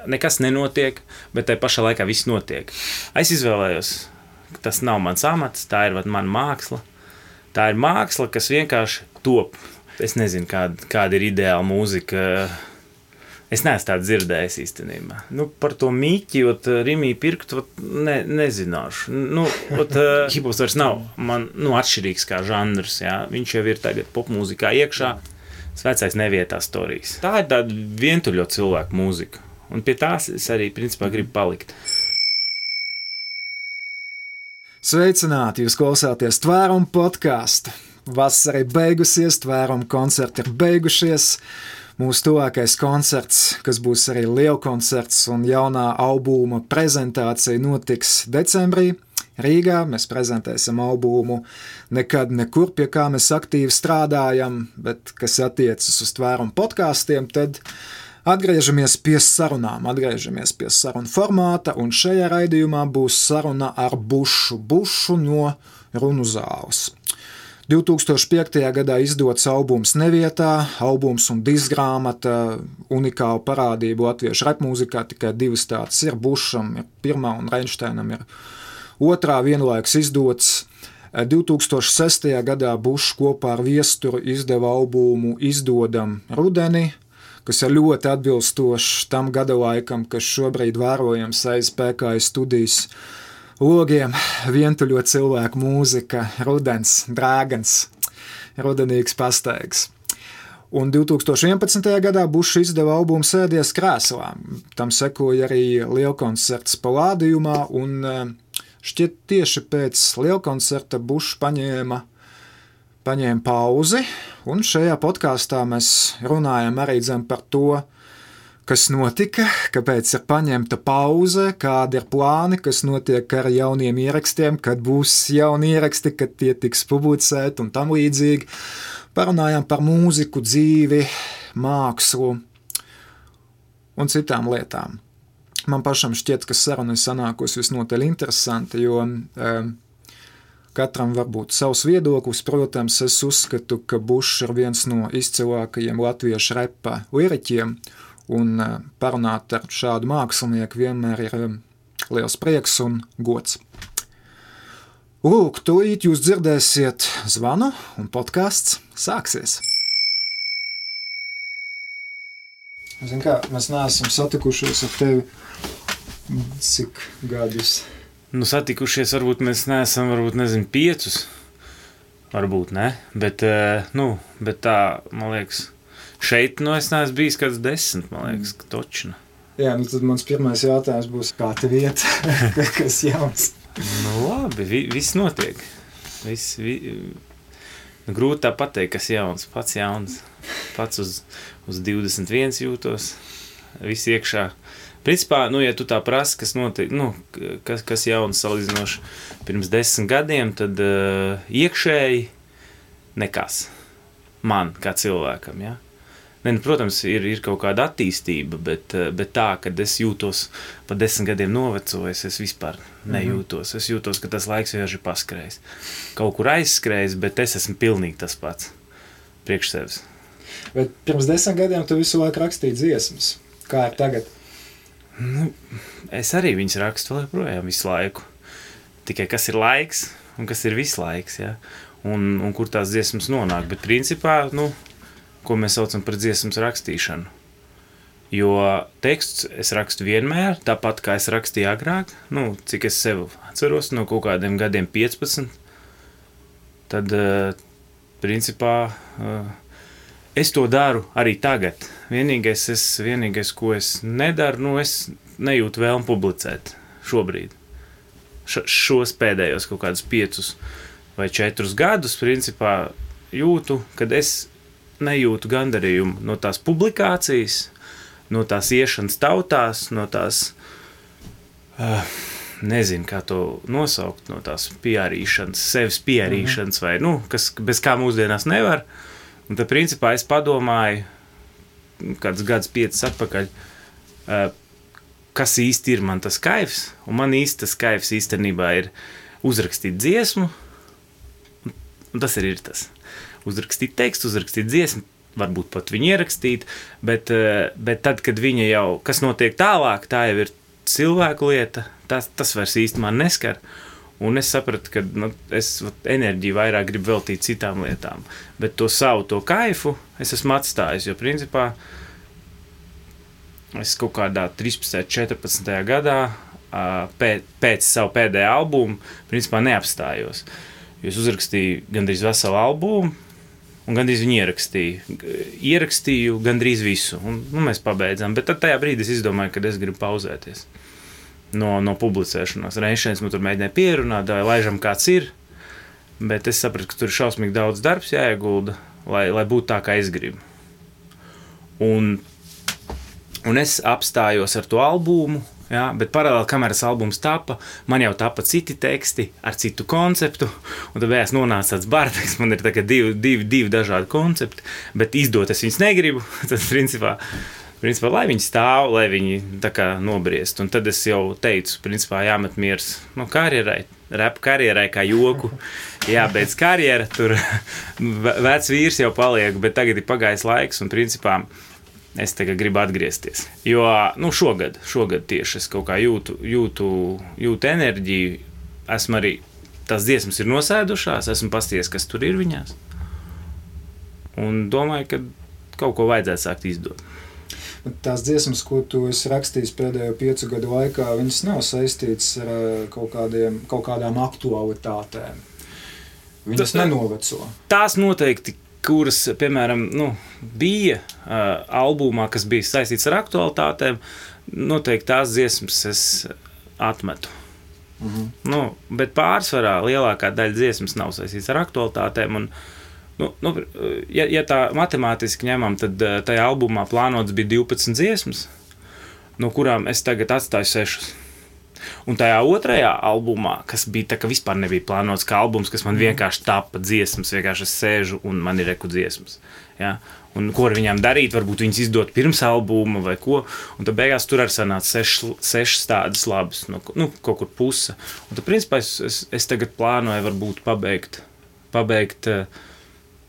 Nekas nenotiek, bet tai pašā laikā viss notiek. Es izvēlējos, ka tas nav mans amats, tā ir mana māksla. Tā ir māksla, kas vienkārši top. Es nezinu, kāda ir ideāla mūzika. Es neesmu tādu dzirdējis īstenībā. Par to mīķi, Rimī pirkt, nezināšu. Hiphops vairs nav man atšķirīgs kā žanrs. Jā. Viņš jau ir tagad popmūzikā iekšā. Vecais nevietā storijas. Tā ir tāda vientuļo cilvēku mūzika. Un pie tās es arī, principā, gribu palikt. Sveicināti! Jūs klausāties Tvērumu podcastu. Vasara ir beigusies, Tvērumu koncerti ir beigušies. Mūsu tuvākais koncerts, kas būs arī lielkoncerts un jaunā albuma prezentācija, notiks decembrī Rīgā. Mēs prezentēsim albumu Nekad nekur, pie kā mēs aktīvi strādājam, bet kas attiecas uz Tvērumu podkastiem, tad atgriežamies pie sarunām, atgriežamies pie sarunu formāta, un šajā raidījumā būs saruna ar Bušu no Runu zāles. 2005. gadā izdots albums Nevietā, albums un diskgrāmata, unikāla parādība latviešu rapmūzikā, tikai divas tādas ir. Bušam ir pirmā un Reinšteinam ir otrā vienlaikus izdots. 2006. gadā Bušs kopā ar Viesturu izdeva albumu Izdodam rudeni, kas ir ļoti atbilstošs tam gada laikam, kas šobrīd vērojams aiz PKI studijas logiem. Vientuļo cilvēku mūzika, rudens, drāgans, rudenīgs pastaigs. Un 2011. gadā Bušs izdeva albumu Sēdies krēslā. Tam sekoja arī lielkoncerts Palādījumā, un šķiet tieši pēc lielkoncerta Bušs paņēma pauzi, un šajā podkāstā mēs runājam arī par to, kas notika, kāpēc ir paņemta pauze, kādi ir plāni, kas notiek ar jauniem ierakstiem, kad būs jauni ieraksti, kad tie tiks publicēti un tam līdzīgi. Parunājam par mūziku, dzīvi, mākslu un citām lietām. Man pašam šķiet, ka saruna ir sanākusi visnotaļ interesanti, jo katram var būt savs viedoklis. Protams, es uzskatu, ka Bušs ir viens no izcilākajiem latviešu repa liriķiem, un parunāt ar šādu mākslinieku vienmēr ir liels prieks un gods. Lūk, tūlīt jūs dzirdēsiet zvanu, un podcasts sāksies. Zin kā, mēs neesam satikušies ar tevi cik gadus? Satikušies, varbūt mēs neesam, 5, varbūt ne, bet tā, man liekas, šeit, es neesmu bijis kāds 10, man liekas, točna. Jā, tad mans pirmais jautājums būs, kā tev iet, kas jauns? Labi, viss notiek. Grūti tā pateikt, kas jauns, pats jauns, pats uz 21 jūtos, viss iekšā. Principā, ja tu tā prasi, kas notiek, kas jauns salīdzinoši pirms 10 gadiem, tad iekšēji nekas. Man, kā cilvēkam, ja? Protams, ir kaut kāda attīstība, bet tā, kad es jūtos pa 10 gadiem novecojis, es vispār nejūtos. Es jūtos, ka tas laiks vienkārši ir paskrējis. Kaut kur aizskrējis, bet es esmu pilnīgi tas pats priekš sevis. Bet pirms 10 gadiem tu visu laiku rakstīji dziesmas. Kā ir tagad? Es arī viņas rakstu vēl projām visu laiku. Tikai kas ir laiks un kas ir viss laiks, ja? Un kur tās dziesmas nonāk. Bet principā, ko mēs saucam par dziesmas rakstīšanu. Jo teksts es rakstu vienmēr, tāpat kā es rakstīju agrāk, cik es sev atceros, no kaut kādiem gadiem 15. Tad, principā, es to daru arī tagad. Vienīgais, ko es nedaru, es nejūtu vēlmu publicēt šobrīd. Šos pēdējos kaut kādus 5 vai 4 gadus, principā, jūtu, kad es nejūtu gandarījumu no tās publikācijas, no tās iešanas tautās, no tās, nezinu, kā to nosaukt, no tās PR-īšanas, sevis PR-īšanas vai, kas bez kā mūsdienās nevar. Un tad, principā, es padomāju, kāds gads 5 atpakaļ, kas īsti ir man tas kaifs, un man īsti tas kaifs īstenībā ir uzrakstīt dziesmu, un tas arī ir tas. Uzrakstīt tekstu, uzrakstīt dziesmu, varbūt pat viņu ierakstīt, bet tad, kad viņa jau, kas notiek tālāk, tā jau ir cilvēku lieta, tas vairs īsti man neskar. Un es sapratu, ka es enerģiju vairāk gribu veltīt citām lietām. Bet to savu, to kaifu es esmu atstājis, jo principā es kaut kādā 13. 14. gadā pēc savu pēdējā albumu principā neapstājos. Jo es uzrakstīju gandrīz veselu albumu un gandrīz viņu ierakstīju. Ierakstīju gandrīz visu un mēs pabeidzām. Bet tad tajā brīdī es izdomāju, ka es gribu pauzēties no publicēšanās. Reiz man tur mēģināja pierunāt, laižam kāds ir, bet es sapratu, ka tur ir šausmīgi daudz darbs jāiegulda, lai būtu tā, kā es gribu. Un es apstājos ar to albumu, jā, bet paralēli, kamēr tas albums tapa, man jau tapa citi teksti ar citu konceptu, un tad beigās nonāca tāds bardaks, man ir tagad divi dažādi koncepti, bet izdot es viņus negribu, tad principā, lai viņi stāv, lai viņi tā kā nobriest. Un tad es jau teicu, principā jāmet miers karjerai, rap karjerai kā joku, jābeidz karjera, tur vecs vīrs jau paliek, bet tagad ir pagājis laiks un principā es tagad gribu atgriezties. Jo, šogad tieši es kaut kā jūtu enerģiju, esmu arī, tās dziesmas ir nosēdušās, esmu pasties, kas tur ir viņās. Un domāju, ka kaut ko vajadzētu sākt izdot. Tās dziesmas, ko tu esi rakstījis pēdējo 5 gadu laikā, viņas nav saistītas ar kaut kādām aktualitātēm. Viņas nenoveco. Tās noteikti, kuras, piemēram, bija albumā, kas bija saistīts ar aktualitātēm, noteikti tās dziesmas es atmetu. Bet pārsvarā lielākā daļa dziesmas nav saistīts ar aktualitātēm, un ja tā matemātiski ņemam, tad tajā albumā plānots bija 12 dziesmas, no kurām es tagad atstāju 6. Un tajā otrajā albumā, kas bija tā, ka vispār nebija plānots kā albums, kas man vienkārši tapa dziesmas, vienkārši es sēžu un man ir reku dziesmas. Ja? Un ko ar viņām darīt, varbūt viņas izdot pirms albuma vai ko, un tad beigās tur arī sanāca 6 tādas labas, kaut kur puse. Un tad principā es tagad plānoju varbūt pabeigt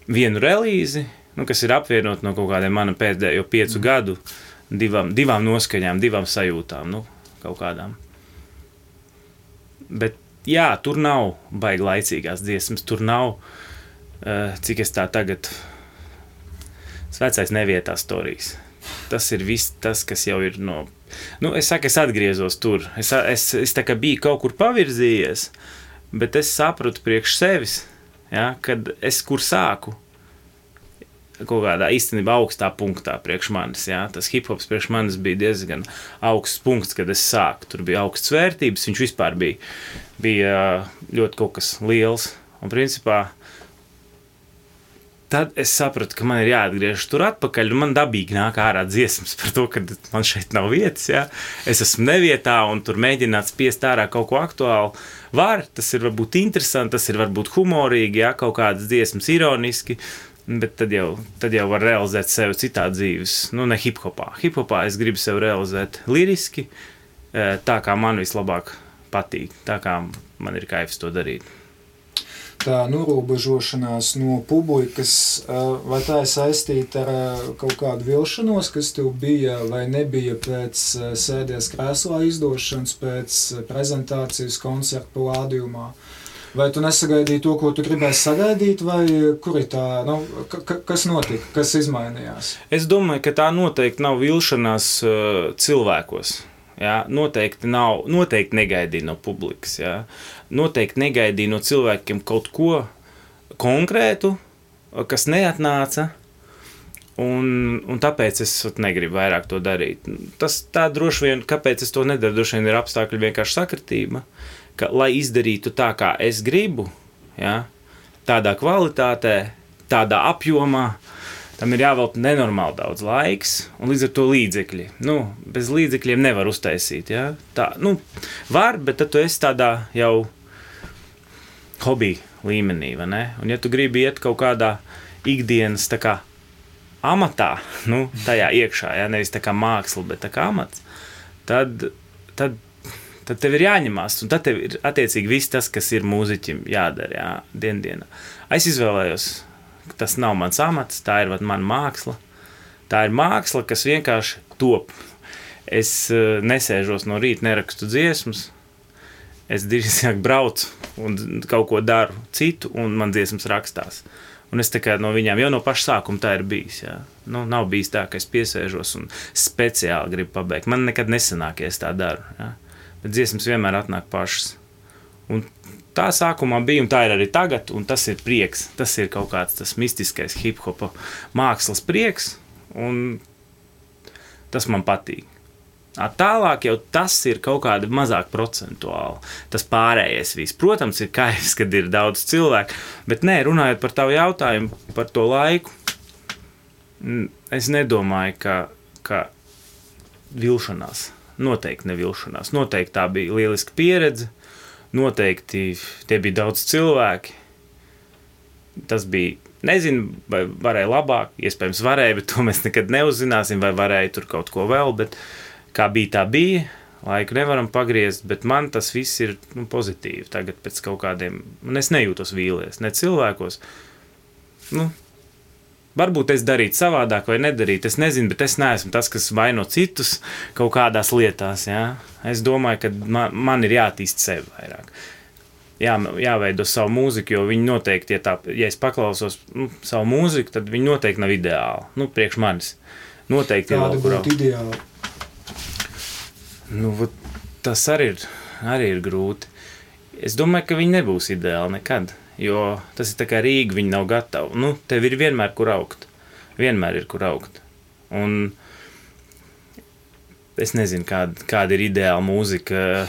vienu relīzi, kas ir apvienot no kaut kādiem mana pēdējo 5 gadu, divām noskaņām, divām sajūtām, kaut kādām. Bet jā, tur nav baigi laicīgās dziesmas, tur nav, cik es tā tagad, vecais nevietā storijas. Tas ir viss tas, kas jau ir es saku, es atgriezos tur, es tā kā biju kaut kur pavirzījies, bet es sapratu priekš sevis, ja, kad es kur sāku, kaut kādā īstenībā augstā punktā priekš manis, ja, tas hip-hops priekš manis bija diezgan augsts punkts, kad es sāku, tur bija augstas vērtības, viņš vispār bija ļoti kaut kas liels, un principā tad es sapratu, ka man ir jāatgriežas tur atpakaļ, un man dabīgi nāk ārā dziesmas par to, ka man šeit nav vietas, ja, es esmu nevietā, un tur mēģināt spiest ārā kaut ko aktuālu, tas ir varbūt interesanti, tas ir varbūt humorīgi, ja, kaut kādas dziesmas ironiski, bet tad jau var realizēt sevi citā dzīves, ne hip-hopā. Hip-hopā es gribu sevi realizēt liriski, tā kā man vislabāk patīk, tā kā man ir kaifs to darīt. Tā norobežošanās no publikas, vai tā ir saistīta ar kaut kādu vilšanos, kas tev bija vai nebija pēc sēdies krēslā izdošanas, pēc prezentācijas koncerta plādījumā? Vai tu nesagaidīji to, ko tu gribēji sagaidīt, vai kur ir tā, kas notika, kas izmainījās? Es domāju, ka tā noteikti nav vilšanās cilvēkos. Ja, noteikti negaidīja no publikas, ja. Noteikti negaidīja no cilvēkiem kaut ko konkrētu, kas neatnāca, un tāpēc es negribu vairāk to darīt. Tā droši vien, kāpēc es to nedaru, droši vien ir apstākļi vienkārši sakritība, ka, lai izdarītu tā, kā es gribu, ja, tādā kvalitātē, tādā apjomā, tam ir jāvelta nenormāli daudz laiks, un līdz ar to līdzekļi. Bez līdzekļiem nevar uztaisīt, ja? Tā, var, bet tad tu esi tādā jau hobby līmenī, vai ne? Un ja tu gribi iet kaut kādā ikdienas tā kā amatā, tajā iekšā, ja? Nevis tā kā māksla, bet tā kā amats, tad tev ir jāņemās, un tad tev ir attiecīgi viss tas, kas ir mūziķim jādara, jā, dienā. Es izvēlējos tas nav mans amats, tā ir mana māksla. Tā ir māksla, kas vienkārši top. Es nesēžos no rīta, nerakstu dziesmas, es drīzāk braucu un kaut ko daru citu, un man dziesmas rakstās. Un es tā kā no viņām jau no paša sākuma tā ir bijis. Jā. Nu, nav bijis tā, ka es piesēžos un speciāli gribu pabeigt. Man nekad nesanāk, ja es tā daru. Jā. Bet dziesmas vienmēr atnāk pašas. Un tā sākumā bija, un tā ir arī tagad, un tas ir prieks. Tas ir kaut kāds tas mistiskais hip-hopa mākslas prieks, un tas man patīk. Tālāk jau tas ir kaut kāda mazāk procentuāli. Tas pārējais viss. Protams, ir kaifs, kad ir daudz cilvēku, bet nē, runājot par tavu jautājumu, par to laiku, es nedomāju, ka vilšanās. Noteikti nevilšanās. Noteikti tā bija lieliska pieredze. Noteikti tie bija daudz cilvēki. Tas bija, nezinu, vai varēja labāk, iespējams varēja, bet to mēs nekad neuzzināsim, vai varēja tur kaut ko vēl, bet kā bija, tā bija, laiku nevaram pagriezt, bet man tas viss ir pozitīvi tagad pēc kaut kādiem, un es nejūtos vīlies, ne cilvēkos. Varbūt es darītu savādāk vai nedarītu, es nezinu, bet es neesmu tas, kas vaino citus kaut kādās lietās, jā. Es domāju, ka man ir jātīst sevi vairāk. Jāveido savu mūziku, jo viņi noteikti, ja es paklausos savu mūziku, tad viņi noteikti nav ideāli, priekš manis. Noteikti kāda būtu ideāli? Tas arī ir grūti. Es domāju, ka viņi nebūs ideāli nekad, jo tas ir tā kā Rīga, viņi nav gatavi. Tev ir vienmēr kur augt. Vienmēr ir kur augt. Un es nezinu, kāda ir ideāla mūzika.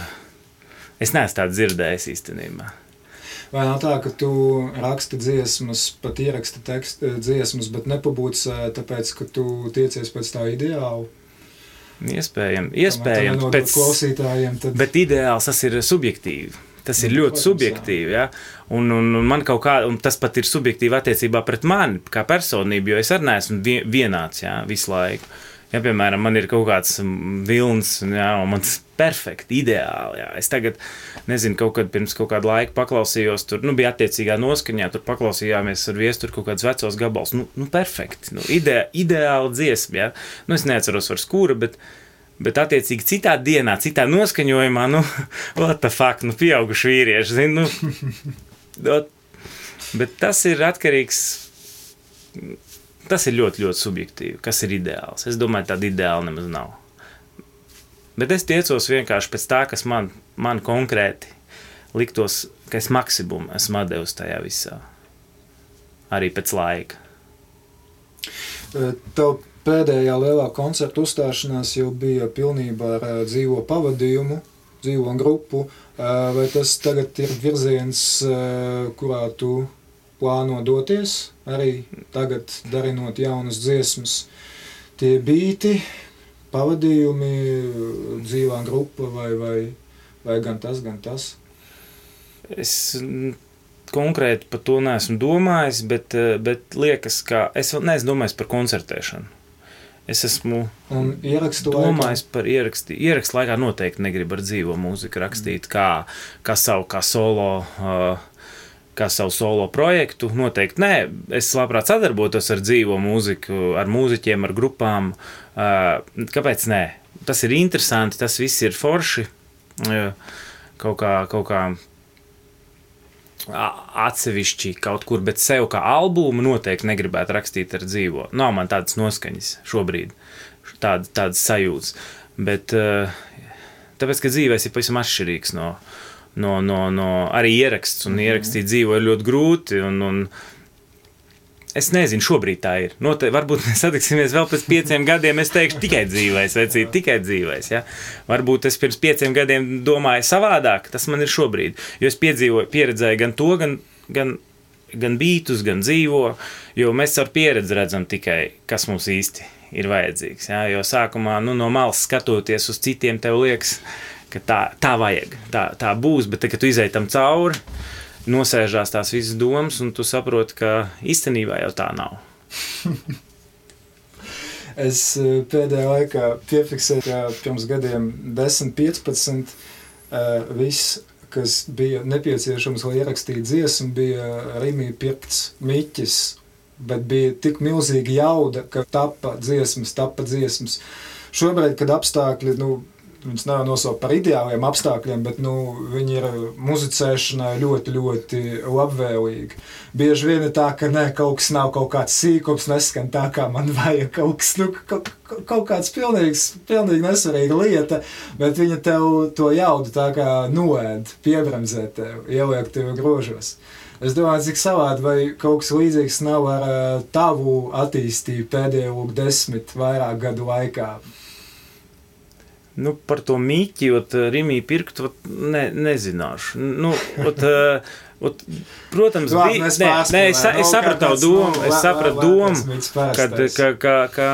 Es neesmu tādu dzirdējis īstenībā. Vai nav tā, ka tu raksti dziesmas, pat ieraksti dziesmas, bet nepabūcē, tāpēc, ka tu tiecies pēc tā ideāla? Iespējams. Pēc klausītājiem tad... Bet ideāls tas ir subjektīvi. Tas ir ļoti subjektīvi, ja? Un man kaut kā, un tas pat ir subjektīvi attiecībā pret mani, kā personību, jo es arī neesmu vienāds, ja, visu laiku. Ja, piemēram, man ir kaut kāds vilns, ja, un man tas perfekti, ideāli, ja. Es tagad, nezinu, pirms kaut kādu laiku paklausījos, tur, bija attiecīgā noskaņā, tur paklausījāmies ar viesu, tur kaut kāds vecos gabals, perfekti, ideāli dziesma, ja. Es neatceros vairs kura, bet attiecīgi citā dienā, citā noskaņojumā, what the fuck, pieauguši vīrieši, zinu, bet tas ir atkarīgs, tas ir ļoti, ļoti subjektīvi, kas ir ideāls. Es domāju, tāda ideāla nemaz nav. Bet es tiecos vienkārši pēc tā, kas man konkrēti liktos, ka es maksimumu esmu devis tajā visā. Arī pēc laika. Tev pēdējā lielā koncerta uzstāšanās jau bija pilnībā ar dzīvo pavadījumu, dzīvo grupu. Vai tas tagad ir virziens, kurā tu plāno doties, arī tagad darinot jaunas dziesmas, tie bīti, pavadījumi, dzīvā grupa vai gan tas? Es konkrēti par to neesmu domājis, bet liekas, ka es vēl neesmu domājis par koncertēšanu. Es esmu domājis par ierakstu. Ierakstu laikā noteikti negribu ar dzīvo mūziku rakstīt, kā savu solo projektu, noteikti nē. Es labprāt sadarbotos ar dzīvo mūziku, ar mūziķiem, ar grupām. Kāpēc nē? Tas ir interesanti, tas viss ir forši. Kaut kā atsevišķi kaut kur, bet sev kā albumu noteikti negribētu rakstīt ar dzīvo. Nav man tādas noskaņas šobrīd, tādas sajūtas. Bet tāpēc, ka dzīvēs ir pavisam atšķirīgs no arī ieraksts, un ierakstīt dzīvo ir ļoti grūti, un es nezinu, šobrīd tā ir. Varbūt mēs satiksimies vēl pēc 5 gadiem, es teikšu tikai dzīvēs, vecīt, tikai dzīvēs, ja. Varbūt es pirms 5 gadiem domāju savādāk, tas man ir šobrīd, jo es pieredzēju gan to, gan bītus, gan dzīvo, jo mēs ar pieredzi redzam tikai, kas mums īsti ir vajadzīgs, ja. Jo sākumā, no malas skatoties uz citiem, tev liekas, ka tā vajag, tā būs, bet kad tu izej tam cauri, nosēžās tās visas domas, un tu saproti, ka īstenībā jau tā nav. Es pēdējā laikā piefiksēju, ka pirms gadiem 10-15 viss, kas bija nepieciešams, lai ierakstītu dziesmu, bija Rimī pirkts miķis bet bija tik milzīga jauda, ka tapa dziesmas. Šobrīd, kad apstākļi, viņas nav nosaukt par ideāliem apstākļiem, bet, viņi ir muzicēšanai ļoti, ļoti labvēlīgi. Bieži vien ir tā, ka kaut kas nav kaut kāds sīkums, neskan tā, kā man vajag, kaut kas, kaut kāds pilnīgi nesvarīga lieta, bet viņa tev to jaudu tā kā noēd, piebremzē tev, ieliek tev grožos. Es domāju, cik savādi, vai kaut kas līdzīgs nav ar tavu attīstību pēdējo 10 vairāk gadu laikā. Par to mīķi, Rimī pirkt, nezināšu. Protams, es sapratu domu, ka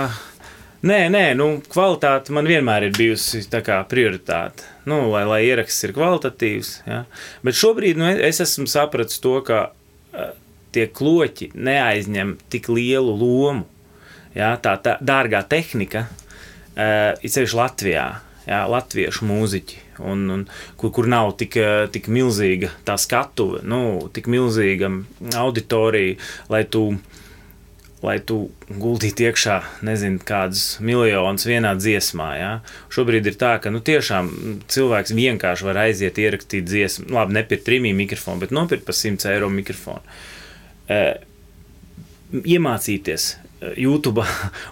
kvalitāte man vienmēr ir bijusi tā kā prioritāte. Lai ieraksts ir kvalitatīvs, ja. Bet šobrīd, es esmu sapratis to, ka tie kloķi neaizņem tik lielu lomu, ja, tā dārgā tehnika, ir sevišķi Latvijā. Jā, latviešu mūziķi, kur nav tik milzīga tā skatuve, tik milzīga auditorija, lai tu guldītu iekšā, nezinu, kādus miljonus vienā dziesmā, jā. Šobrīd ir tā, ka, tiešām cilvēks vienkārši var aiziet ierakstīt dziesmu, labi, nepirkt Rimī mikrofonu, bet nopirkt par 100 eiro mikrofonu. Iemācīties YouTube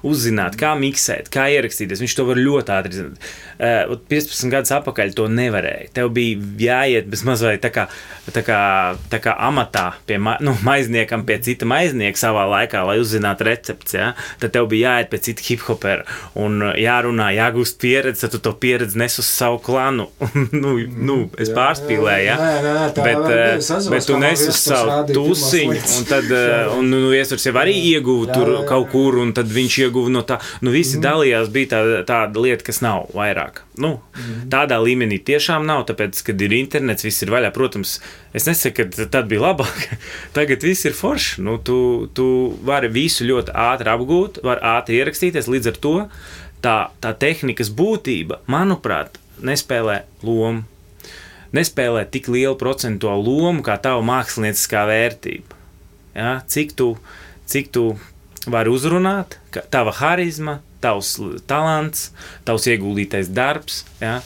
uzzināt, kā miksēt, kā ierakstīties. Viņš to var ļoti ātri zināt. 15 gadus atpakaļ to nevarēja. Tev bija jāiet bez mazliet tā kā amatā pie maizniekam, pie cita maiznieka savā laikā, lai uzzinātu recepts. Ja? Tad tev bija jāiet pie cita hiphopera un jārunā, jāgūst pieredzi, tad tu to pieredzi nes uz savu klanu. Es pārspīlēju, ja? Bet tu nes uz savu tusiņu, un tad iesvars jau arī ieguva tur kaut kur, un tad viņš ieguva no tā. Visi dalījās, bija tāda lieta, kas nav vairāk. Tādā līmenī tiešām nav, tāpēc, kad ir internets, viss ir vaļā. Protams, es nesaku, ka tad bija labāk. Tagad viss ir forši. Tu vari visu ļoti ātri apgūt, vari ātri ierakstīties, līdz ar to tā tehnikas būtība, manuprāt, nespēlē lomu. Nespēlē tik lielu procentuālu lomu, kā tava mākslinieckā vērtība. Ja? Cik tu vari uzrunāt, tava harizma, tavs talants, tavs ieguldītais darbs, ja?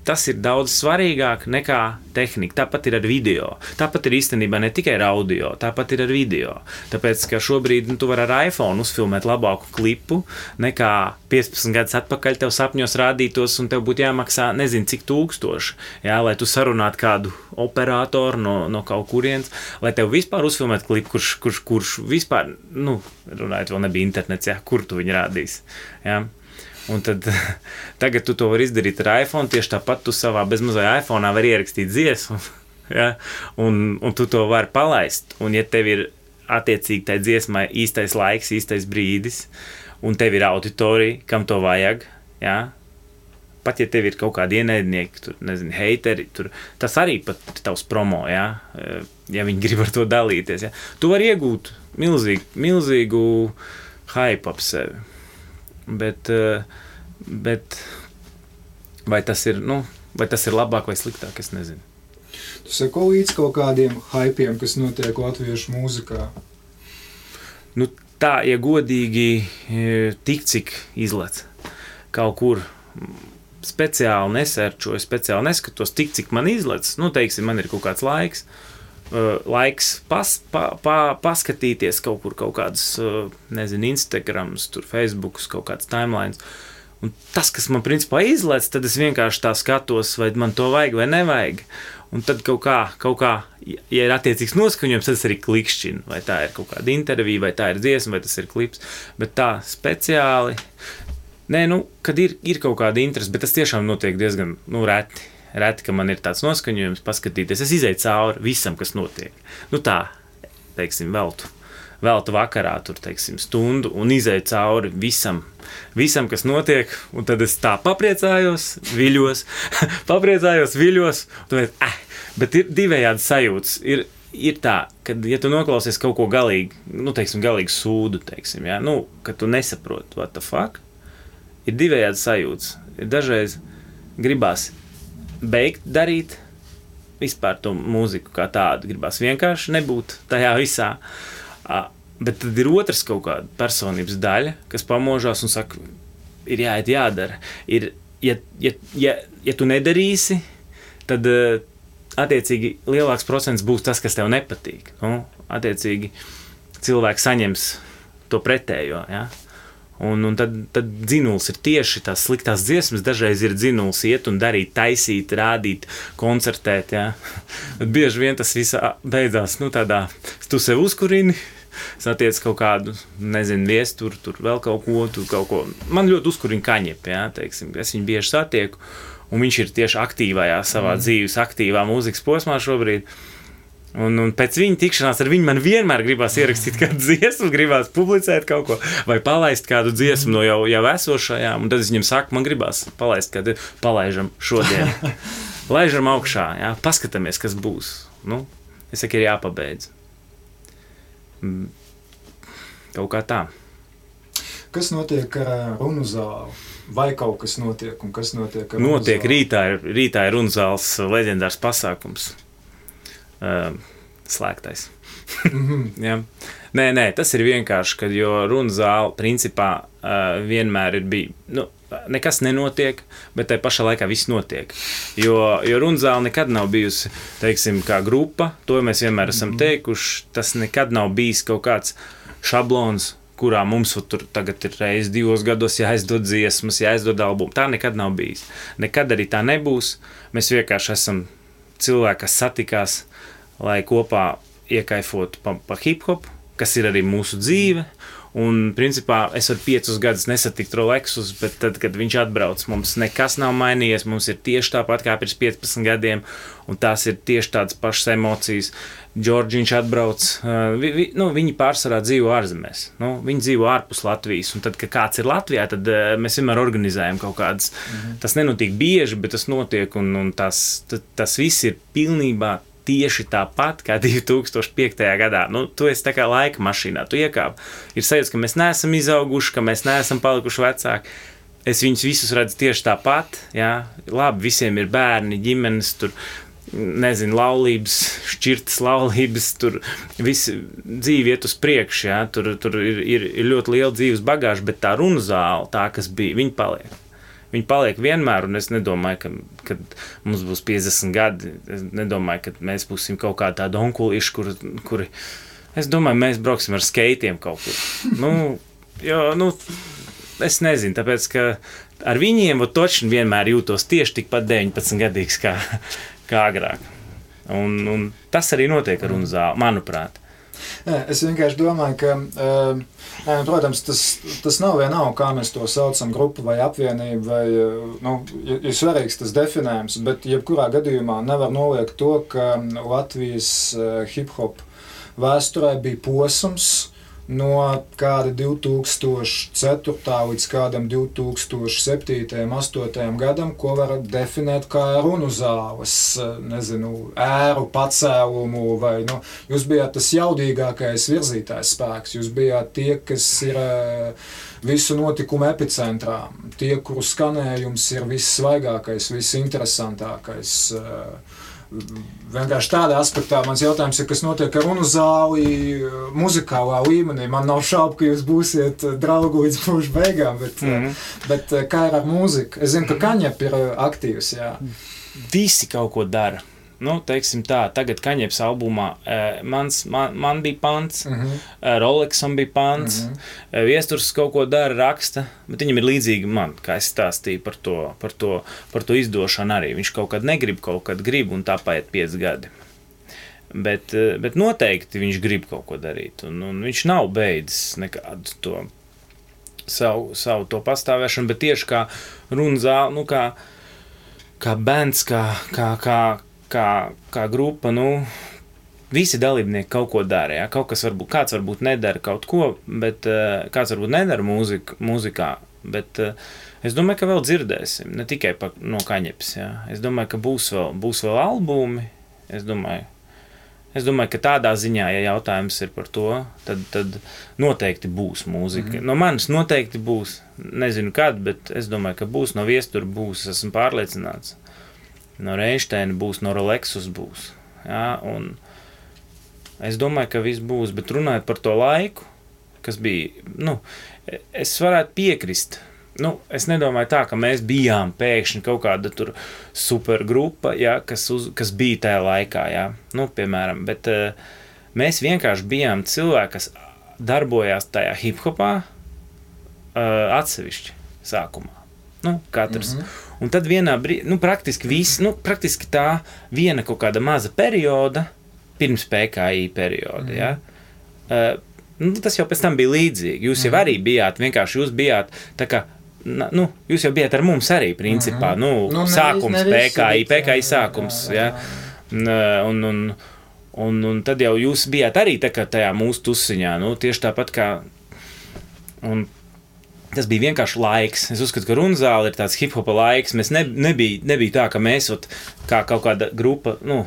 Tas ir daudz svarīgāk nekā tehnika. Tāpat ir ar video. Tāpat ir īstenībā ne tikai ar audio, tāpat ir ar video. Tāpēc, ka šobrīd tu vari ar iPhone uzfilmēt labāku klipu, nekā 15 gadus atpakaļ tev sapņos rādītos, un tev būtu jāmaksā nezinu cik tūkstoši, ja? Lai tu sarunātu kādu operatoru no kaut kurienes, lai tev vispār uzfilmēt klipu, kurš vispār, runājot, vēl nebija internets, ja? Kur tu viņu rādīsi. Ja? Un tad tagad tu to vari izdarīt ar iPhone, tieši tāpat tu savā bezmazai iPhone'ā vari ierakstīt dziesmu, ja? un tu to vari palaist. Un ja tev ir attiecīgi tai dziesmai īstais laiks, īstais brīdis, un tev ir auditorija, kam to vajag, ja? Pat ja tev ir kaut kādi ienaidnieki, tur, nezinu, heiteri, tas arī pat tavs promo, ja? Ja viņi grib ar to dalīties. Ja? Tu vari iegūt milzīgu hype ap sevi. Bet vai tas ir labāk vai sliktāk, es nezinu. Tu seko līdz kaut kādiem hypiem, kas notiek latviešu mūzikā? Tā, ja godīgi, tik cik izlec kaut kur speciāli nesērčoju, speciāli neskatos, tik cik man izlec, teiksim, man ir kaut kāds laiks paskatīties kaut kur kaut kādas, nezinu, Instagrams, tur Facebooks, kaut kāds timelines. Un tas, kas man principā izlec, tad es vienkārši tā skatos, vai man to vajag vai nevajag. Un tad kaut kā, ja ir attiecīgs noskaņojums, tad es arī klikšķinu, vai tā ir kaut kāda intervija, vai tā ir dziesma, vai tas ir klips. Bet tā speciāli, kad ir kaut kāda interese, bet tas tiešām notiek diezgan, reti, ka man ir tāds noskaņojums paskatīties. Es izēju cauri visam, kas notiek. Tā, teiksim, veltu vakarā, tur, teiksim, stundu un izēju cauri visam, kas notiek, un tad es tā papriecājos, viļos, bet ir divējādi sajūtas. Ir tā, kad, ja tu noklausies kaut ko galīgi, galīgi sūdu, teiksim, ja? Kad tu nesaproti, what the fuck, ir divējādi sajūtas. Ir dažreiz gribās beigt darīt vispār to mūziku kā tādu, gribās vienkārši nebūt tajā visā. Bet tad ir otrs kaut kāda personības daļa, kas pamožās un saka, ir jāiet, jādara. Ja tu nedarīsi, tad attiecīgi lielāks procents būs tas, kas tev nepatīk. Nu, attiecīgi cilvēks saņems to pretējo, ja? Un tad dzinuls ir tieši tās sliktās dziesmas, dažreiz ir dzinuls iet un darīt, taisīt, rādīt, koncertēt, ja? Bet bieži vien tas viss beidzās, nu tādā, tu sev uzkurini, satiec kaut kādu, nezinu, viesturu, tur vēl kaut ko. Man ļoti uzkurina Kaņepi, ja, teiksim, es viņu bieži satieku, un viņš ir tieši aktīvajā savā dzīves, aktīvā mūzikas posmā šobrīd. Un pēc viņa tikšanās ar viņu man vienmēr gribās ierakstīt kādu dziesmu, gribās publicēt kaut ko, vai palaist kādu dziesmu no jau esošajām, un tad es viņam saku, man gribās palaist kādu, palaižam šodien. Laižam augšā, jā, paskatāmies, kas būs. Nu, es saku, ir jāpabeidz. Kaut kā tā. Kas notiek ar runu zāli? Vai kaut kas notiek, un kas notiek ar runu Notiek, zāli? rītā ir runu zāles leģendārs pasākums. Slēgtais. Ja. Nē, tas ir vienkārši, kad jo runu zāle principā vienmēr ir bija, nu, nekas nenotiek, bet tai pašā laikā viss notiek. Jo runu zāle nekad nav bijusi, teiksim, kā grupa, to mēs vienmēr esam teikuši, tas nekad nav bijis kaut kāds šablons, kurā mums tur tagad ir reiz 2 gados jāizdod dziesmas, jāizdod albumu. Tā nekad nav bijis. Nekad arī tā nebūs. Mēs vienkārši esam cilvēki, kas satikās, lai kopā iekaifotu pa hip-hop, kas ir arī mūsu dzīve. Un, principā, es varu 5 gadus nesatikt Rolexus, bet tad, kad viņš atbrauc, mums nekas nav mainījies, mums ir tieši tāpat kā pirms 15 gadiem, un tās ir tieši tādas pašas emocijas. Džordžiņš atbrauc, viņi pārsvarā dzīvo ārzemēs, viņi dzīvo ārpus Latvijas, un tad, kad kāds ir Latvijā, tad mēs vienmēr organizējam kaut kādas, tas nenotiek bieži, bet tas notiek, un tas viss ir pilnībā tieši tāpat kā 2005. Gadā. Nu, tu esi tā kā laika mašīnā, tu iekāp. Ir sajūta, ka mēs neesam izauguši, ka mēs neesam palikuši vecāki. Es viņus visus redzu tieši tāpat, jā. Labi, visiem ir bērni, ģimenes, tur, nezinu, laulības, šķirtas laulības, tur visi dzīve iet uz priekšu, jā. Tur ir ļoti liela dzīves bagāža, bet tā runu zāle, tā, kas bija, viņi paliek. Viņi paliek vienmēr, un es nedomāju, ka mums būs 50 gadi. Es nedomāju, ka mēs būsim kaut kā tādi onkulīši, kuri... Es domāju, mēs brauksim ar skeitiem kaut kur. Es nezinu, tāpēc, ka ar viņiem točni vienmēr jūtos tieši tikpat 19 gadīgs kā agrāk. Un tas arī notiek ar runu zāli, manuprāt. Es vienkārši domāju, ka, protams, tas nav vienalga, kā mēs to saucam, grupu vai apvienību, vai, ir svarīgs tas definējums, bet jebkurā gadījumā nevar noliekt to, ka Latvijas hip-hop vēsturē bija posms no kāda 2004. līdz kādam 2007. 2008. gadam, ko var definēt kā runu zāles, nezinu, ēru, pacēlumu, vai, jūs bijāt tas jaudīgākais virzītājs spēks, jūs bijāt tie, kas ir visu notikumu epicentrā, tie, kuru skanējums ir vissvaigākais, visinteresantākais. Vienkārši tādā aspektā mans jautājums ir, kas notiek ar runu zāli muzikālā līmenī. Man nav šaubu, ka jūs būsiet draugi līdz mūža beigām, bet kā ir ar mūziku? Es zinu, ka Kaņep ir aktīvs, jā. Visi kaut ko dara. Teiksim tā, tagad Kaņeps albumā man bija pants, Rolexam bija pants, Viesturs kaut ko dara, raksta, bet viņam ir līdzīgi man, kā es stāstīju par to izdošanu arī. Viņš kaut kad negrib, kaut kad grib, un tā paiet 5 gadi. Bet noteikti viņš grib kaut ko darīt, un viņš nav beidzis nekādu to savu to pastāvēšanu, bet tieši kā runu zāle, kā bands, kā grupa, visi dalībnieki kaut ko dara, jā. Kāds varbūt nedara kaut ko, bet kāds varbūt nedara mūzikā, bet es domāju, ka vēl dzirdēsim, ne tikai no Kaņepes, jā. Es domāju, ka būs vēl albumi, es domāju, ka tādā ziņā, ja jautājums ir par to, tad noteikti būs mūzika. No manis noteikti būs, nezinu kad, bet es domāju, ka būs, no Viestura būs, esmu pārliecināts. No Reinsteina būs, no Rolexus būs. Jā, un es domāju, ka viss būs, bet runājot par to laiku, kas bija, nu, es varētu piekrist. Nu, es nedomāju tā, ka mēs bijām pēkšņi kaut kāda tur supergrupa, ja, kas bija tajā laikā, ja. Nu, piemēram, bet mēs vienkārši bijām cilvēki, kas darbojās tajā hip-hopā atsevišķi sākumā. Nu, katrs. Un tad vienā brīdī, nu, praktiski tā viena kaut kāda maza perioda, pirms PKI perioda, ja, nu, tas jau pēc tam bija līdzīgi. Jūs jau arī bijāt, vienkārši jūs bijāt tā kā, nu, jūs jau bijāt ar mums arī, principā, nu sākums PKI sākums, ja, un tad jau jūs bijāt arī tā kā tajā mūsu tusiņā, nu, tieši tāpat kā, un tas bija vienkārši laiks. Es uzskatu, ka Runzāle ir tāds hip-hopa laiks. Mēs nebija tā, ka mēs kā kaut kāda grupa, nu,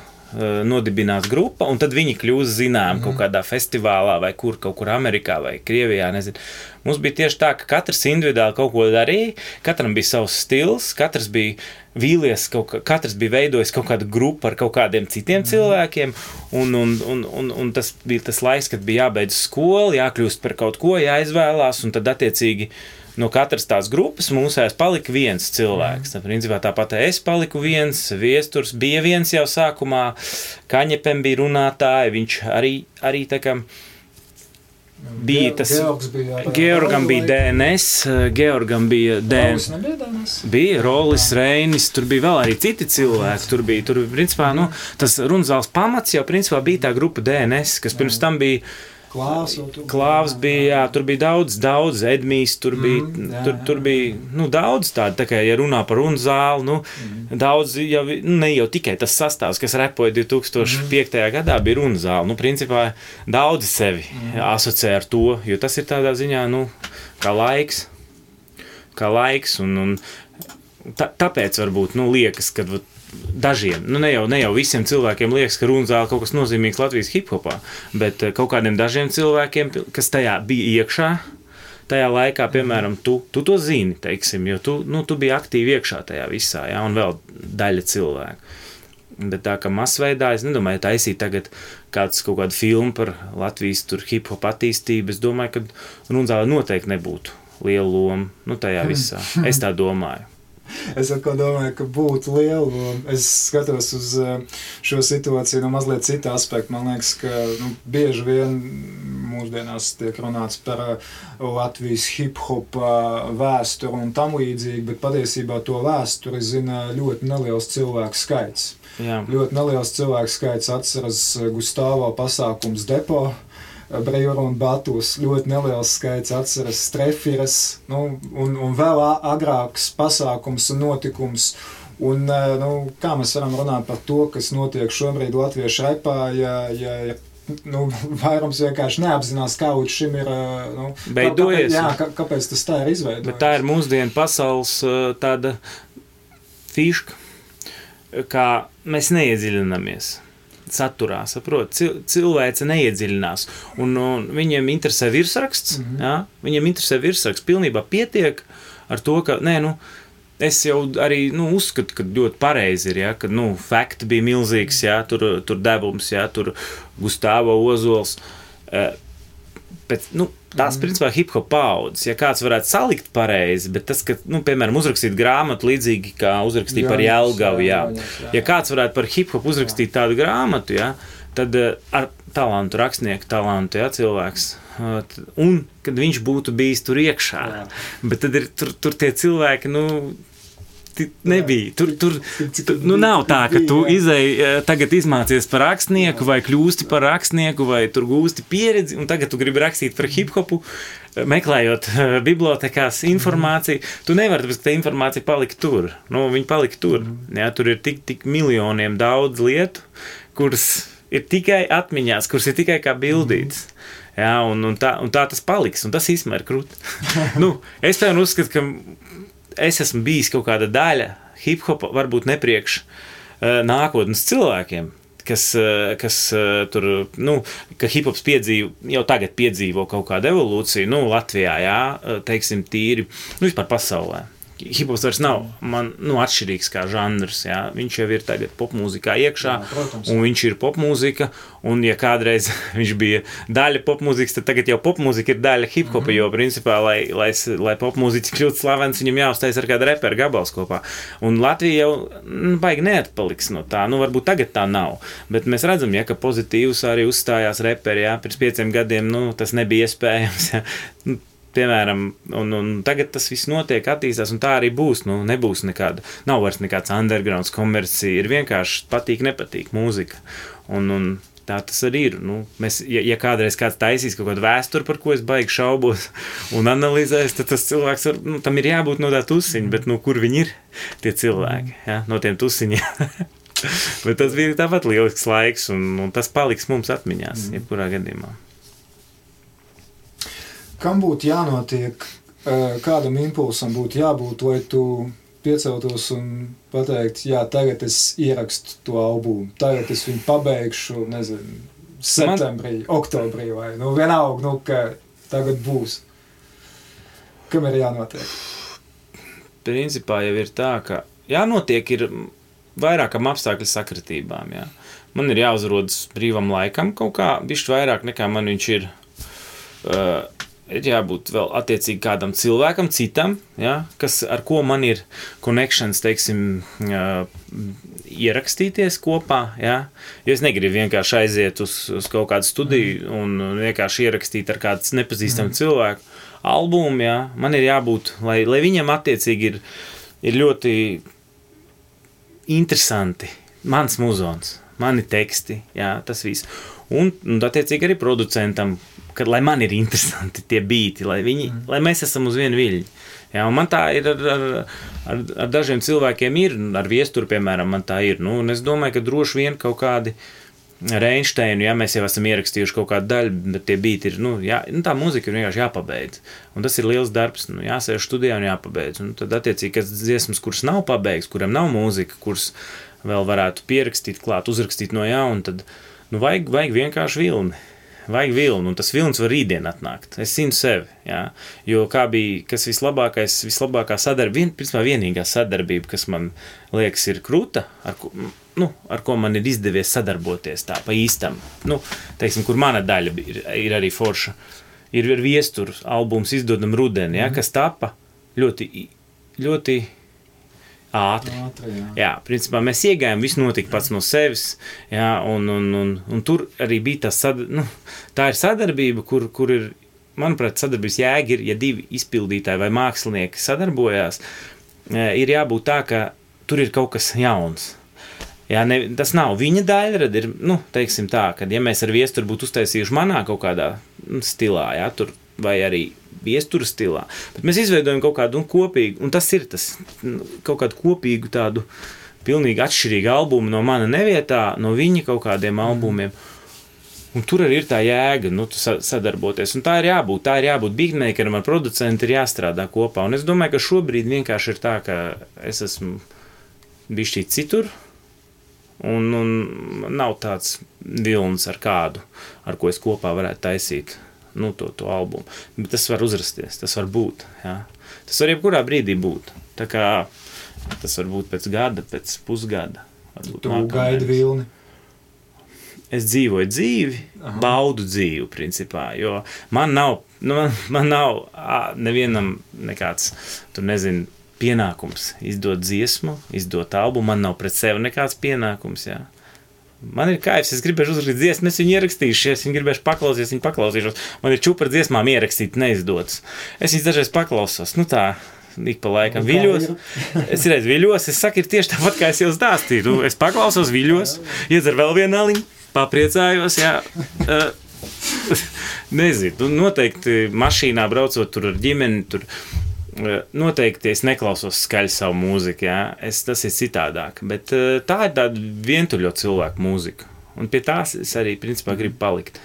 nodibinās grupa, un tad viņi kļūst zinām kaut kādā festivālā vai kaut kur Amerikā vai Krievijā, nezinu. Mums bija tieši tā, ka katrs individuāli kaut ko darīja, katram bija savs stils, katrs bija vīlies, katrs bija veidojis kaut kādu grupu ar kaut kādiem citiem cilvēkiem, un tas bija tas laiks, kad bija jābeidz skolu, jākļūst par kaut ko, jāizvēlās, un tad attiecīgi no katras tās grupas mūsējās palika viens cilvēks. Principā tāpat es paliku viens, Viesturs bija viens jau sākumā, Kaņepem bija runātāji, viņš arī tā kā bija tas... Georgam bija DNS, Georgam bija DNS. Bija Rolis, Reinis, tur bija vēl arī citi cilvēki. Tur principā, nu, tas Runzāles pamats jau principā bija tā grupa DNS, kas pirms tam bija Klāvs bija, jā, tur bija daudz, Edmijs, tur bija, nu, daudz tādu, tā kā, ja runā par Runzāli, nu, daudz, jau, ne jau tikai tas sastāvs, kas repoja 2005. Gadā, bija Runzāli, nu, principā, daudzi sevi asociē ar to, jo tas ir tādā ziņā, nu, kā laiks, un tāpēc varbūt, nu, liekas, kad dažiem, nu ne jau visiem cilvēkiem liekas, ka Runzāle kaut kas nozīmīgs Latvijas hip-hopā, bet kaut kādiem dažiem cilvēkiem, kas tajā bija iekšā, tajā laikā, piemēram, tu to zini, teiksim, jo tu biji aktīvi iekšā tajā visā, jā, un vēl daļa cilvēku. Bet tā kā masveidā, es nedomāju, taisīt tagad kaut kādu filmu par Latvijas tur hip-hop attīstību, es domāju, ka Runzāle noteikti nebūtu liela loma, nu tajā visā. Es tā domāju. Es atkal domāju, ka būtu liela loma. Es skatos uz šo situāciju no mazliet cita aspekta. Man liekas, ka bieži vien mūsdienās tiek runāts par Latvijas hip-hopa vēsturi un tam līdzīgi, bet patiesībā to vēsturi zina ļoti neliels cilvēku skaits. Jā. Ļoti neliels cilvēku skaits atceras Gustavo pasākums Depo, Brīvra un Batus, ļoti neliels skaits atceras Strefiras, nu, un vēl agrāks pasākums un notikums. Un, nu, kā mēs varam runāt par to, kas notiek šobrīd latviešu repā, ja nu, vairums vienkārši neapzinās, kā līdz šim ir, nu, beidojies. Kāpēc tas tā ir izveidojies? Bet tā ir mūsdienu pasaules tāda fiška, kā mēs neiedziļinamies saturā, saprot, cilvēce neiedziļinās, un viņiem interesē virsraksts, jā, viņiem interesē virsraksts, pilnībā pietiek ar to, ka, es jau arī, uzskatu, ka ļoti pareizi ir, jā, ka, fakti bija milzīgs, jā, tur devums, jā, tur Gustavo Ozols, bet, tās, principā, hip-hop paudzes, ja kāds varētu salikt pareizi, bet tas, ka, piemēram, uzrakstīt grāmatu līdzīgi, kā uzrakstīt par Jelgavu, jā. Ja kāds varētu par hip-hop uzrakstīt tādu grāmatu, jā, tad ar talantu, rakstnieku talantu, jā, cilvēks, un kad viņš būtu bijis tur iekšā, bet tad ir tur tie cilvēki, nebija. Tur nav tā, ka tu tagad izmācies par rakstnieku vai kļūsti par rakstnieku vai tur gūsti pieredzi un tagad tu gribi rakstīt par hip-hopu, meklējot bibliotekās informāciju. Tu nevari, tāpēc, ka tā informācija palika tur. Viņa palika tur. Jā, tur ir tik miljoniem daudz lietu, kuras ir tikai atmiņās, kuras ir tikai kā bildītas. Jā, un tā tas paliks, un tas īstenībā ir krūti. Es tev uzskatu, ka es esmu bijis kaut kāda daļa hip-hopa, varbūt nepriekš nākotnes cilvēkiem, kas tur, ka hip-hops jau tagad piedzīvo kaut kādu evolūciju, Latvijā, jā, teiksim, tīri, vispār pasaulē. hiphops vairs nav man, atšķirīgs kā žanrs, jā. Viņš jau ir tagad popmūzikā iekšā, un viņš ir popmūzika, un ja kādreiz viņš bija daļa popmūzikas, tad tagad jau popmūzika ir daļa hiphopa, jo principā, lai popmūziķis kļūtu slavens, viņam jāuztais ar kādu reperu gabals kopā. Un Latvija jau baigi neatpaliks no tā, varbūt tagad tā nav, bet mēs redzam, ja, ka pozitīvs arī uzstājās reperi, jā, pirms 5 gadiem, tas nebija iespējams, jā. Piemēram, un tagad tas viss notiek, attīstās, un tā arī būs, nebūs nekāda, nav vairs nekāds undergrounds komercija, ir vienkārši patīk, nepatīk mūzika, un tā tas arī ir, mēs, ja kādreiz kāds taisīs kaut kādu vēsturi, par ko es baigi šaubos un analizēs, tad tas cilvēks, tam ir jābūt no tā tusiņa, bet kur viņi ir, tie cilvēki, ja, no tiem tusiņiem. Bet tas bija tāpat lielisks laiks, un tas paliks mums atmiņās, jebkurā gadījumā. Kam būtu jānotiek, kādam impulsam būtu jābūt, lai tu pieceltos un pateikt, jā, tagad es ierakstu to albumu, tagad es viņu pabeigšu, nezinu, septembrī, oktobrī vai, vienalga, ka tagad būs. Kam ir jānotiek? Principā jau ir tā, ka jānotiek ir vairākam apstākļu sakritībām, jā. Man ir jāuzrodas brīvam laikam kaut kā, bišķi vairāk nekā man viņš ir jābūt vēl attiecīgi kādam cilvēkam, citam, ja, ar ko man ir connections, teiksim, ierakstīties kopā, ja, jo es negribu vienkārši aiziet uz kaut kādu studiju un vienkārši ierakstīt ar kādu nepazīstamu cilvēku albumu, ja, man ir jābūt, lai viņam attiecīgi ir ļoti interesanti, mans muzons, mani teksti, ja, tas viss, un attiecīgi arī producentam, lai man ir interesanti tie bīti, lai mēs esam uz vienu viļņu. Jā, un man tā ir ar dažiem cilvēkiem ir, ar Viesturu, piemēram, man tā ir. Un es domāju, ka droši vien kaut kādi Reinsteinu, ja mēs jau esam ierakstījuši kaut kādu daļu, bet tie bīti ir, tā mūzika ir vienkārši jāpabeidz. Un tas ir liels darbs, jāsēž studijā un jāpabeidz. Un tad attiecīgi, kas dziesmas, kuras nav pabeigts, kuram nav mūzika, kuras vēl varētu pierakstīt klāt, uzrakstīt no jauna, tad vajag vienkārši vilni. Vajag vilni, un tas vilnis var rītdien atnākt. Es zinu sevi, jā. Jo kā bija, kas vislabākā sadarbība, principā vienīgā sadarbība, kas man liekas ir kruta, ar ko man ir izdevies sadarboties tā pa īstam. Teiksim, kur mana daļa ir arī forša. Ir Viesturu albums Izdodam rudeni, jā, kas tapa ļoti, ļoti ātri. Jā, principā mēs iegājām, viss notika pats no sevis, jā, un tur arī bija tā ir sadarbība, kur ir, manuprāt, sadarbības jēga ir, ja 2 izpildītāji vai mākslinieki sadarbojās, ir jābūt tā, ka tur ir kaut kas jauns. Jā, tas nav viņa daļrada, ir, teiksim tā, ka ja mēs ar Viesturu būtu uztaisījuši manā kaut kādā stilā, jā, tur vai arī Viesturu stilā, bet mēs izveidojam kaut kādu kopīgu, un tas ir tas, kaut kādu kopīgu tādu pilnīgi atšķirīgu albumu no mana nevietā, no viņa kaut kādiem albumiem, un tur arī ir tā jēga, sadarboties, un tā ir jābūt beatmakeram ar producentu, ir jāstrādā kopā, un es domāju, ka šobrīd vienkārši ir tā, ka es esmu bišķīt citur, un nav tāds vilnis ar kādu, ar ko es kopā varētu taisīt to albumu. Bet tas var uzrasties, tas var būt. Jā. Tas var jebkurā brīdī būt. Tā kā tas var būt pēc gada, pēc pusgada. Tu gaidi vilni? Es dzīvoju dzīvi, baudu dzīvi, principā, jo man nav nevienam nekāds, pienākums izdot dziesmu, izdot albumu, man nav pret sevi nekāds pienākums, jā. Man ir kaifs, es gribēšu uzrakstīt dziesmu, es viņu ierakstīšu, es viņu gribēšu paklausīšos. Man ir čupa ar dziesmām ierakstīt neizdotas. Es viņas dažreiz paklausos, tā, ik pa laikam viļos. Es redzu viļos, es saku, ir tieši tāpat, kā es jau stāstīju. Es paklausos viļos, iedzer vēl vienu aliņu, papriecājos, jā. Nezinu, noteikti mašīnā braucot tur ar ģimeni, tur noteikti es neklausos skaļi savu mūziku, jā. Tas ir citādāk, bet tā ir tāda vientuļo cilvēku mūzika, un pie tās es arī, principā, gribu palikt.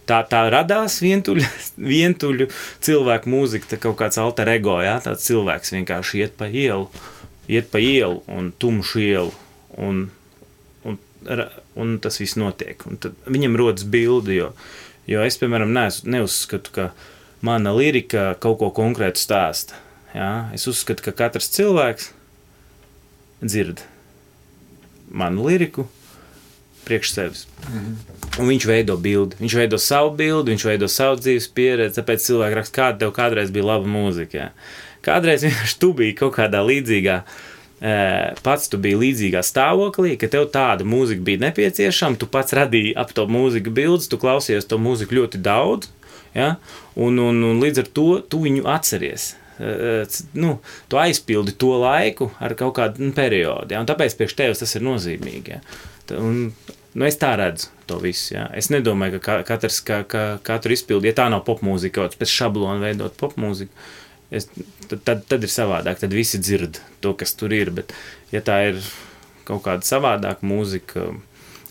Tā radās vientuļu cilvēku mūzika, tā kaut kāds alter ego, jā, tāds cilvēks vienkārši iet pa ielu un tumšu ielu, un tas viss notiek, un tad viņam rodas bildi, jo es, piemēram, neuzskatu, ka mana lirika kaut ko konkrētu stāsta. jā, es uzskatu, ka katrs cilvēks dzird manu liriku priekš sevis. Un viņš veido bildi. Viņš veido savu bildi, viņš veido savu dzīves pieredzi, tāpēc cilvēki raksta, kāda tev kādreiz bija laba mūzika. Jā. Kādreiz vienkārši tu biji kaut kādā līdzīgā, pats tu biji līdzīgā stāvoklī, ka tev tāda mūzika bija nepieciešama, tu pats radīji ap to mūziku bildes, tu klausies to mūziku ļoti daudz, ja? un līdz ar to tu viņu atceries. Tu aizpildi to laiku ar kaut kādu periodu, ja? Un tāpēc priekš tevis tas ir nozīmīgi. Ja? Es tā redzu to visu. Ja? Es nedomāju, ka katru izpildi, ja tā nav popmūzika, kaut pēc šablona veidot popmūziku, tad ir savādāk, tad visi dzird to, kas tur ir, bet ja tā ir kaut kāda savādāka mūzika,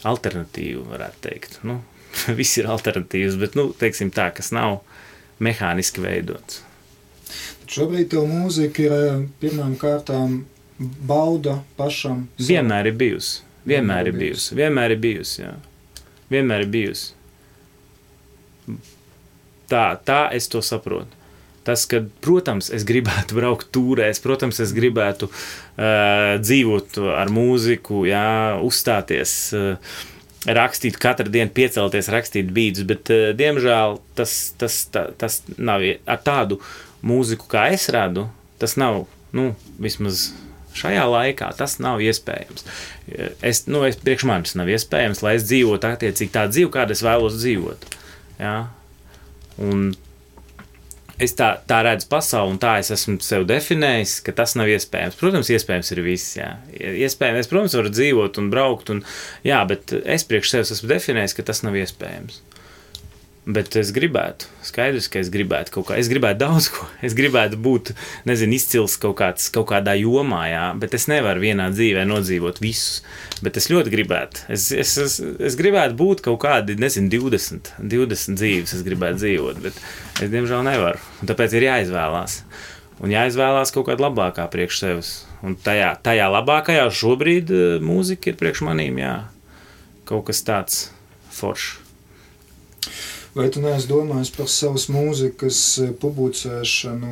alternatīva, varētu teikt. Viss ir alternatīvs, bet, teiksim tā, kas nav mehāniski veidots. Šobrīd tev mūzika ir pirmām kārtām bauda pašam. Vienmēr ir bijusi. Vienmēr ir bijusi, jā. Vienmēr ir bijusi. Tā es to saprotu. Tas, ka, protams, es gribētu braukt tūrēs, protams, es gribētu dzīvot ar mūziku, jā, uzstāties, rakstīt katru dienu, piecelties, rakstīt beats, bet, diemžēl, tas nav ar tādu mūziku, kā es radu, tas nav, vismaz šajā laikā, tas nav iespējams. Priekš manis nav iespējams, lai es dzīvotu attiecīgi tā dzīvi, kāda es vēlos dzīvot. Jā? Un es tā redzu pasauli, un tā es esmu sev definējis, ka tas nav iespējams. Protams, iespējams ir viss, jā. Iespējams, es, protams, varu dzīvot un braukt, jā, bet es priekš sevis esmu definējis, ka tas nav iespējams. Bet es gribētu, skaidrs, ka es gribētu kaut kā, es gribētu daudz ko, es gribētu būt, izcils kaut kādā jomā, jā, bet es nevaru vienā dzīvē nodzīvot visus, bet es ļoti gribētu, es gribētu būt kaut kādi, 20 dzīves es gribētu dzīvot, bet es diemžēl nevaru, un tāpēc ir jāizvēlās, un jāizvēlās kaut kāda labākā priekš sevis, un tajā labākajā šobrīd mūzika ir priekš manīm, jā, kaut kas tāds foršs. Vai tu neesi domājis par savas mūzikas publicēšanu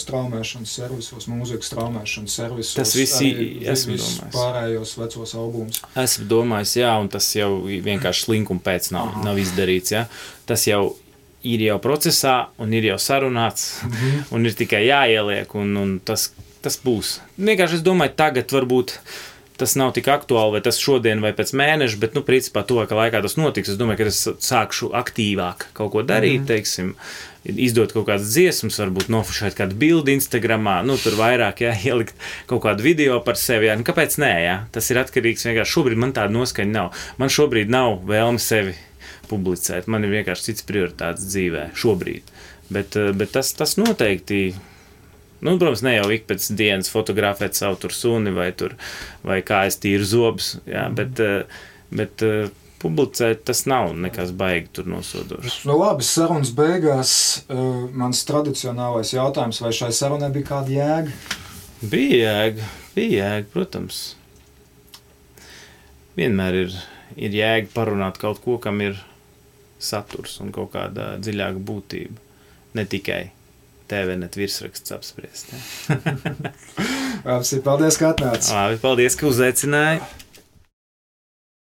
straumēšanas servisos, mūzikas straumēšanas servisos? Tas visi esmu domājis. Pārējos vecos albumus. Esmu domājis, jā, un tas jau vienkārši slinkuma pēc nav izdarīts, jā. Tas jau ir jau procesā, un ir jau sarunāts, un ir tikai jāieliek, un tas būs. Vienkārši es domāju, tagad varbūt tas nav tik aktuāli, vai tas šodien vai pēc mēneša, bet, principā, tuvākā laikā tas notiks. Es domāju, ka es sākšu aktīvāk kaut ko darīt, teiksim, izdot kaut kādas dziesmas, varbūt nofušēt kādu bildi Instagramā, tur vairāk, jā, ielikt kaut kādu video par sevi, jā. Kāpēc nē, jā? Tas ir atkarīgs vienkārši. Šobrīd man tāda noskaņa nav. Man šobrīd nav vēlme sevi publicēt. Man ir vienkārši cits prioritātes dzīvē šobrīd. Bet tas noteikti... protams, ne jau ik pēc dienas fotografēt savu tur suni vai kā es tīru zobus, jā, bet publicēt tas nav nekas baigi tur nosodošs. Labi, sarunas beigās mans tradicionālais jautājums, vai šai sarunai bija kāda jēga? Bija jēga, protams. Vienmēr ir jēga parunāt kaut ko, kam ir saturs un kaut kāda dziļāka būtība. Ne tikai TVNet virsraksts apspriest. Paldies, ka atnāci. Paldies, ka uzaicināji.